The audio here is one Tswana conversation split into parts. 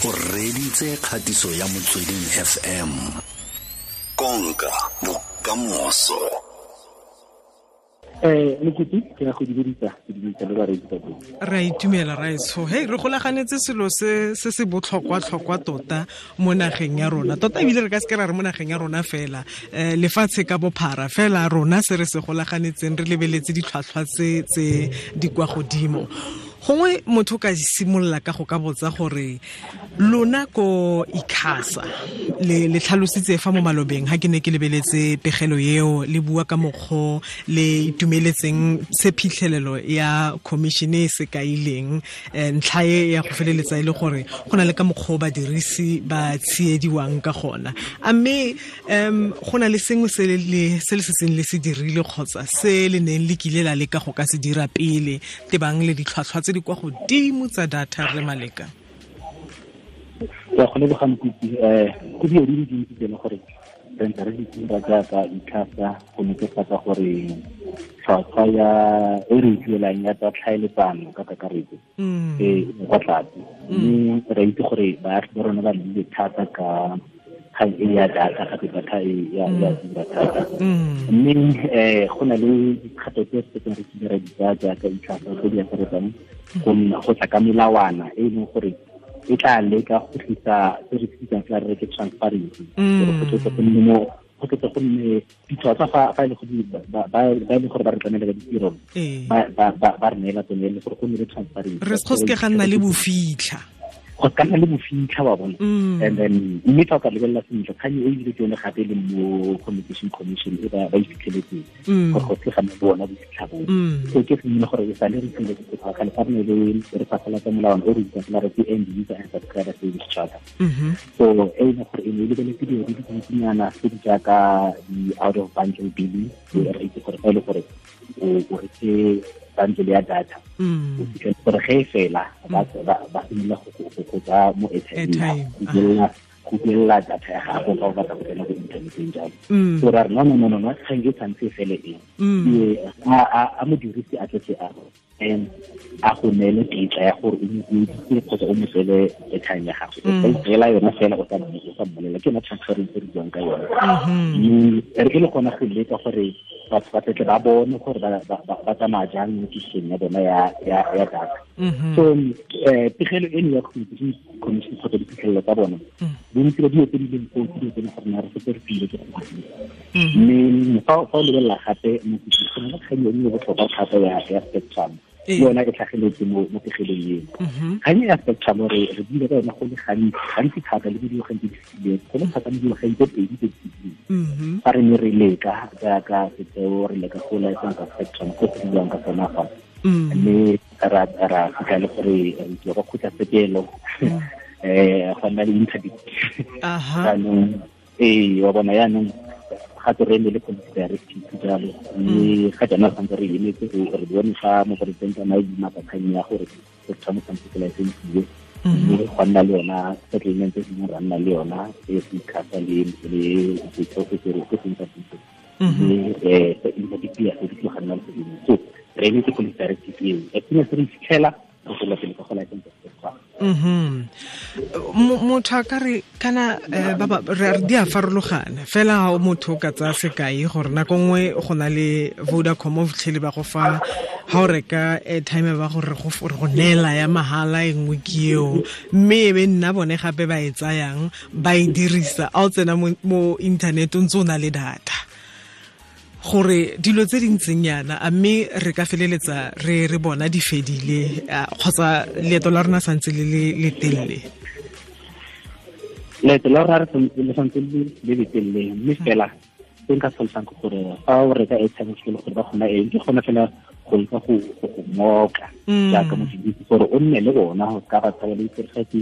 O reditse kgatiso ya Motsweding FM. Konka bokamoso. Mokopi ke ya go dumedisa, ke dumedisa le bareetsi ba bone. Re a itumela raetsho. Hei, re golaganetse selo se se se botlhokwa-tlhokwa tota mo nageng ya rona. Tota ebile re ka seke ra re mo nageng ya rona fela, lefatshe ka bophara fela rona se re se golaganetseng re lebeletse ditlhwatlhwa tse tse di kwa godimo. Gongwe motho ka simolola ka go ka botsa gore lona ko ICASA le tlhalositse fa mo malobeng ha ke ne ke lebeletse pegelo eo le bua ka mokgwa le itumeletseng se phitlhelelo ya commission e se kaileng, ntlha e ya go feleletsa e le gore go na le ka mokgwa badirisi ba tsiediwang ka gona. A mme go na le sengwe se le setseng le se dirile kgotsa se le neng le kile la leka go ka se dira pele tebang le ditlhwatlhwa tse di kwa godimo tsa data re Maleka? Ke go leboga Mokopi. Go dilo di le dintsi tse e leng gore re ntse re di dira jaaka ICASA go netefatsa gore tlhwatlhwa ya e re duelang ya tsa tlhaeletsano ka kakaretso e kwa tlase, mme re itse gore baagi ba rona ba llile thata ka kgang e ya data, gape data e ya tura thata. Mme go na le dikgato tse setseng re kile ra di tsaya jaaka ICASA tse di akaretsang go nna go tla ka melawana e leng gore e tla leka go tlisa se re bitsang fela re ke transparency, gore go tle go nne mo go tle go nne ditlhwatlhwa fa e le gore ba e leng gore ba re tlamela ka ditiro, ba re neela tsone, e le gore go nne le transparency, re go seke ga nna le bofitlha, go ka nna le bofitlha wa bona. And then mme fa o ka lebelela sentle kgang e ebile ke yone gape e leng mo Communication Commission e ba e fitlheletseng gore go se ga nna le bona bofitlha boo. So ke sengwe gore e sale re tlile go tloga kgale fa re ne le re phasalatsa molawana o re bitsang fela re ke End User and Subscriber Service Charter. So e leng gore e ne e lebeletse dilo di le dintsinyana tse di jaaka di-out of bundle billing, re itse gore fa e le gore o reke bundle ya data, o fitlhele gore ge e fela ba simolola go tsaya mo airtime go duelela data ya gago fa o batla go tsena ko inthaneteng jalo. So ra re no, kgang e tshwanetse e fele e a modirisi a tletse a a go neele tetla ya gore o mo bueditse kgotsa o mo tsele airtime ya gago, o itseela yona fela o sa mmolela. Ke yona transparency re buang ka yone. Mme re e le gona go leka gore batho ba tle ba bone gore ba tsamaya jang mo tisong ya bona ya data. So pegelo eno ya Communication Commission kgotsa diphitlhelelo tsa bona, bontsi ba dilo tse di leng foo ke dilo tse e leng gore re setse re file ke go dira. Mme fa o lebelela gape mo go na le kgang e nngwe botlhokwa thata ya spectrum, le yona e tlhageletse mo pegelong eno. Kgang ya spectrum re buile ka yona go le gantsi thata le mo dingwageng tse di fetileng, go le thata mo dingwageng tse pedi tse di fetileng, fa re ne re leka jaaka setheo re leka go license spectrum go go buiwang ka sona fa, mme ra fitlha le gore re tswa kwa kgotlatshekelo, go nna le interdict. Jaanong wa bona yaanong gape re emele policy directive jalo, mme ga jaana re santse re emetse re bone fa moporesidente a na le kgang ya gore spectrum santse se licensiwe, mme go nna le yona settlement e sengwe ra nna le yona e se ICASA le setheo se se seng sa puso, mme interdict ya se di tloga nna le sedimo. So re emetse policy directive eo, as soon as re fitlhela re tswela pele ka go license spectrum. Motho a ka re kana re di a farologana fela ha motho o ka tsaya sekai gore nako nngwe go na le Vodacom o fitlhele ba go fa ha o reka airtime ba gore go neela ya mahala e nngwe ke eo, mme e be nna bone gape ba e tsayang ba e dirisa a o tsena mo internet o ntse o na le data. Gore dilo tse di ntseng yana a mme re ka feleletsa re bona di fedile kgotsa leeto la rona santse le le telele? Leeto la rona le santse le le telele, mme fela se nka tlhalosang ke gore fa o reka airtime ke le gore ba kgona eng, ke kgona fela go leka go ngoka jaaka modirisi gore o nne le bona go ka ba tsaya le itse ge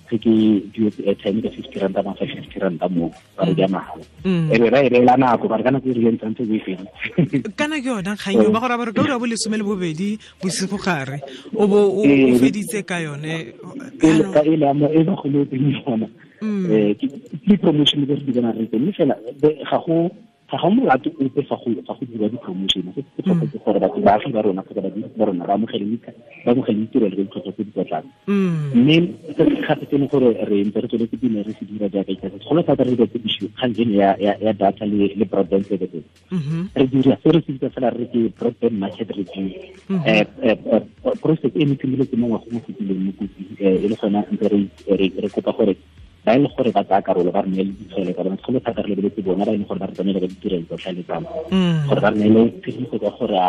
ke duetse airtime ka 50 ranta ba fa 50 ranta mo ba re ja mahala, e be ra e beela nako ba re kana ke re ntse o e feditse. Kana ke yona kgang eo ba gore ba re ka ura bo 12 bosigo gare o bo o feditse ka yone ka e le mo e ba go le teng yona. Ke promotion e re di bona re teng, mme fela ga go Ga go molato ope fa go dira di-promotion, se se tlhoka ke gore batho baagi ba rona kgotsa badirisi ba rona ba amogele ditirelo ka ditlhwatlhwa tse di kwa tlase. Mme se gape se leng gore re ntse re tsweletse pele re se dira jaaka ICASA, segolo thata re dira tse kgang eno ya data le broadband services. Re dira se re se bitsa fela re ke broadband market review. Process e ne simolotse mo ngwageng o fetileng mo kotsi, e le gona ntse re kopa gore ba e le gore ba tsaya karolo ba re neele ditshwaelo tsa bona, segolo thata re lebeletse bona ba e leng gore ba re tsamaela ka ditirelo tsa tlhaeletsano, gore ba re neele tshedimosetso ya gore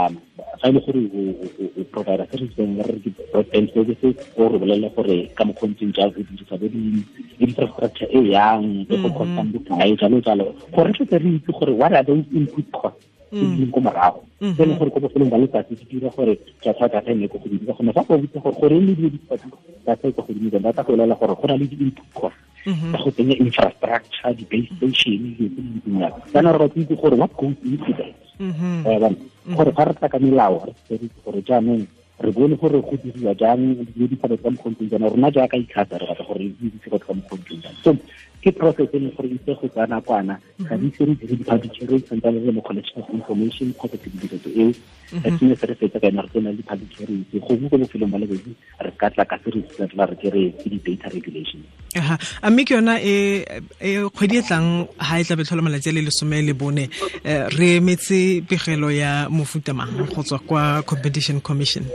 fa e le gore o provider se re bitsang re ke broadband services, o re bolelele gore ka mokgwa o ntseng jang o dirisa bo di-infrastructure e yang e go costang bokae, jalo jalo, gore re tle re itse gore what are those input costs tse di leng ko morago, tse e leng gore ko bofelong ba letsatsi di dira gore tlhwatlhwa data e nne ko godimo. Ka gonne fa go botsa gore goreng le dilo di data e ko godimo, ba tla go bolelela gore go na le di-input costs tsa go tsenya infrastructure, di-base station, dilo tse di ntseng jalo. Jaanong re batla itse gore what goes into that, gore fa re tla ka melao re itse gore jaanong re bone gore go diriwa jang dilo di tsa ka mokgwa o ntseng jaana. Rona jaaka ICASA re batla gore re itse go ka mokgwa o ntseng jang. So ke process e leng gore itse go tsaya nakwana, ga di ise re dire di-public hearing, santsane re le mo collection of information kgotsa tshedimosetso eo. As soon as re fetsa ka yona re tsena le di-public hearings, gongwe ko bofelong ba letsatsi re ka tla ka se re tla re ke re ke di-data regulation. A mme ke yona e kgwedi e tlang ha e tla be tlhola malatsi a le 14, re emetse pegelo ya mofuta mang go tswa kwa Competition Commission?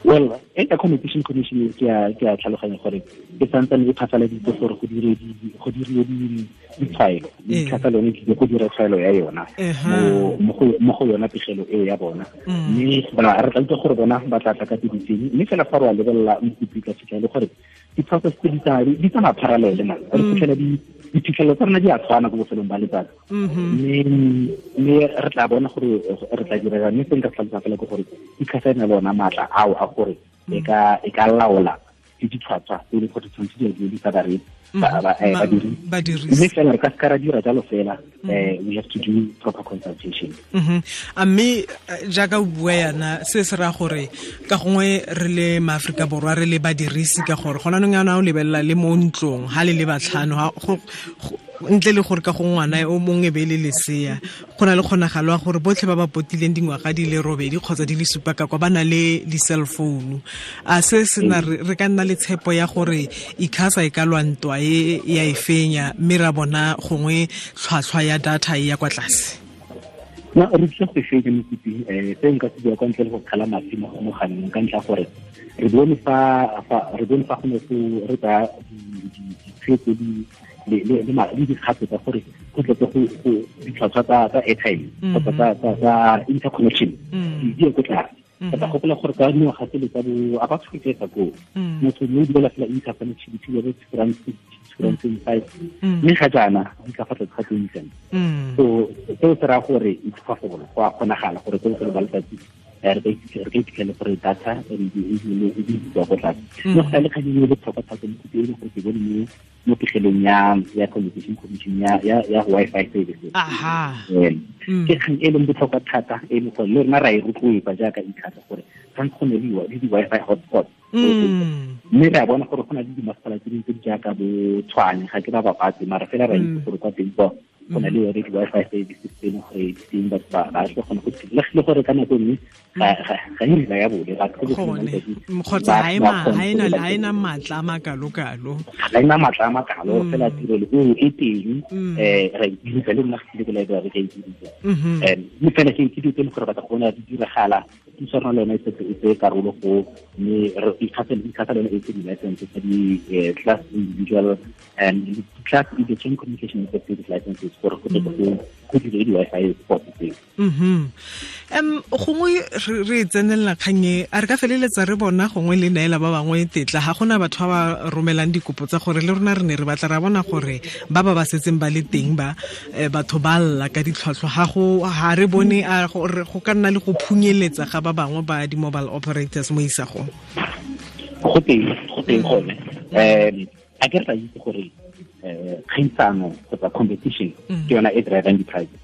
Well, e ka Competition Commission ke a tlhaloganya gore e santsane e phasaladitse gore go dire ditshwaelo, ICASA lone ke go dira tshwaelo ya yona mo go yona pegelo eo ya bona. Mme re tla utlwa gore bona ba tla tla ka tse ditseng, mme fela fa re wa lebelela mokopi ka fitlha le gore di-process tse di tsamaya parallel, man re fitlhela diphitlhelelo tsa rona di a tshwana ko bofelong ba letsatsi. Mme re tla bona gore re tla dira, mme se nka tlhalosa fela ke gore ICASA e na le ona maatla ao a gore e ka laola le ditlhwatlhwa tse e leng gore tshwanetse di a duedisa badirisi. Mme fela re ka seka ra dira jalo fela, we have to do proper consultation. A mme jaaka o bua yana, se se raya gore ka gongwe re le maAforika Borwa re le badirisi, ka gore gona nong yana o lebelela le mo ntlong ha le le batlhano, ntle le gore ka go ngwana o mongwe be le lesea, go na le kgonagalo ya gore botlhe ba ba potileng dingwaga di le 8 kgotsa di le 7 ka kwa ba na le di-cell phone. A se sena re ka nna le tshepo ya gore ICASA e ka lwa ntwa e ya e fenya, mme ra bona gongwe tlhwatlhwa ya data e ya kwa tlase? No, re tlile go e fenya mokopi. Se nka se bua kwa ntle le go kgala mafi mo mogaleng, ka ntlha gore re bone fa go ne go re tsaya ditshwetso le dikgato tsa gore go tle go ditlhwatlhwa tsa airtime kgotsa tsa interconnection di ye ko tlase. Ka tla gopola gore ka dingwaga tsele tsa bo about 20 years ago, motho ne o duela fela interconnectivity ya bo R2.25, mme ga jaana di ka fa tlase ga 20 cents. So seo se raya gore it's possible, go a kgonagala gore ko bofelong ba letsatsi re ka iphitlhele gore data e di ko tlase. Mme go sa le kgang e botlhokwa thata mo e leng gore ke bone mo pegelong ya Competition Commission ya Wi-Fi services. Ke kgang e leng botlhokwa thata e leng gore le rona ra e rotloetsa jaaka ICASA gore tshwanetse go ne le di-Wi-Fi hotspot. Mme re a bona gore go na le dimasepala tse dingwe tse di jaaka bo Tshwane, ga ke ba bapatse, mara fela ra itse gore kwa teng kwa go na le yone di-Wi-Fi services tse leng gore di teng, batho ba tla kgona go le gore ka nako nngwe ga e reliable, batho kgotsa ga ena maatla a makalokalo, ga ena maatla a makalo, fela tirelo eo e teng, ra e dirisa le rona ge ke library ka e dirisa. Mme fela ke dilo tse e leng gore batla go bona di diragala, puso ya rona le yone e setse e tseye karolo go, mme ICASA le yone e tse di-license tsa di-class individual and class electronic communication service licenses gore go tle go dire di-Wi-Fi spot tseo. Gongwe re tsenelela kgang e, a re ka feleletsa re bona gongwe le neela ba bangwe tetla, ga gona batho ba ba romelang dikopo tsa gore le rona re ne re batla ra bona gore ba ba setseng ba le teng ba batho ba lla ka ditlhwatlhwa, ga re bone a go ka nna le go phunyeletsa ga ba bangwe ba di-mobile operators mo isagong? Go teng gone. A ke re tla itse gore kgaisano kgotsa competition ke yona e drivang di-prices,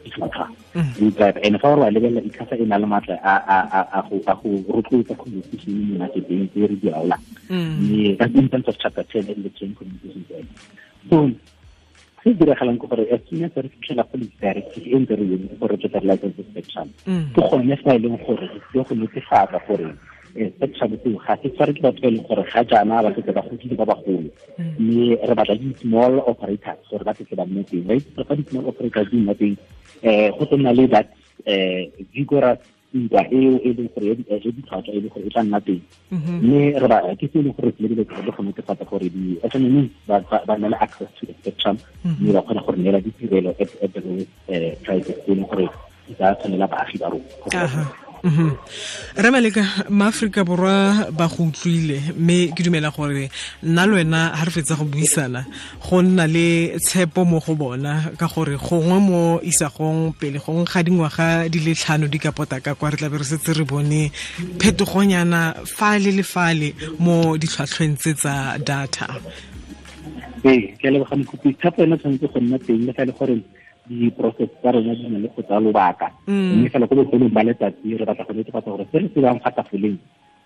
ditlhwatlhwa di drive. And fa o re wa lebelela, ICASA e na le maatla a go rotloetsa competition mo marketeng tse re di laolang, mme that's in terms of chapter 10 electronic communications act. So Se diragalang ke gore as soon as re fitlhela policy directive e ntse re yone gore re tla license spectrum, ke gone fa e leng gore re tlile go netefatsa gore spectrum seo ga se tshware ke batho ba e leng gore ga jaana ba setse ba godile ba bagolo, mme re batla di-small operators gore ba setse ba nne teng. Ba itse fa di-small operators di nna teng, go tlo nna le that vigorous ntwa eo e leng gore ya ditlhwatlhwa e leng gore e tla nna teng. Mme re ba ke se e leng gore re tlile go netefatsa gore di-SMME ba nna le access to the spectrum, mme ba kgona gore neela ditirelo at the lowest prices e leng gore di ka tshwanela baagi ba rona. Re Maleka, maAforika Borwa ba go utlwile, mme ke dumela gore nna le wena ga re fetsa go buisana go nna le tshepo mo go bona, ka gore gongwe mo isagong pele gongwe ga dingwaga di le 5 di ka pota ka kwa, re tla be re setse re bone phetogonyana fale le fale mo ditlhwatlhweng tse tsa data. Ee, ke a leboga Mokopi. Tshepo ena tshwanetse go nna teng le fa e le gore di-process tsa rona di na le go tsaya lobaka, mme fela ko bofelong ba letsatsi re batla go netefatsa gore se re se bang fa tafoleng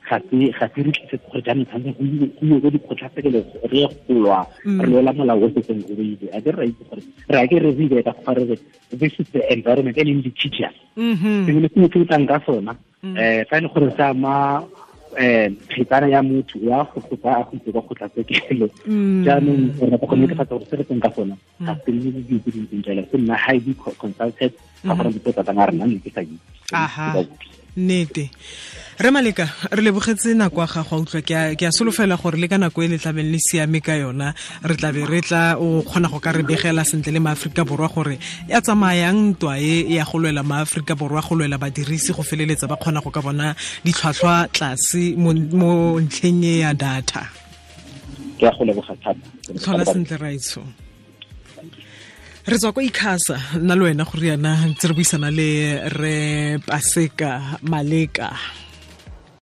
ga se re tlisetse gore jaanong tshwanetse go iwe ko dikgotlatshekelo re ye go lwa, re lwela molao o setseng o beile. A ke re ra itse gore re a ke re re ka go re this is the environment e leng litigious, sengwe le sengwe se o tlang ka sona, fa e le gore se ama kgetsana ya motho ya go tsaya go itse kwa kgotlatshekelo. Jaanong re batla go netefatsa gore se re tseng ka sona ga se nne le dilo tse di ntseng jalo, se nna highly consulted, ga gore dipotsa tsa rena ne ke sa itse. Nnete. Re Maleka, re lebogetse nako ya gago a utlwa. Ke a solofela gore le ka nako e le tlabeng le siame ka yona, re tlabe re tla o kgona go ka re begela sentle le maAforika Borwa gore ya tsamayang ntwa e ya go lwela maAforika Borwa, go lwela badirisi go feleletsa ba kgona go ka bona ditlhwatlhwa tlase mo ntlheng e ya data. Ke a go leboga thata. Tlhola sentle, raetsho. Re tswa kwa ICASA nna le wena go riana ntse re buisana le re Paseka Maleka.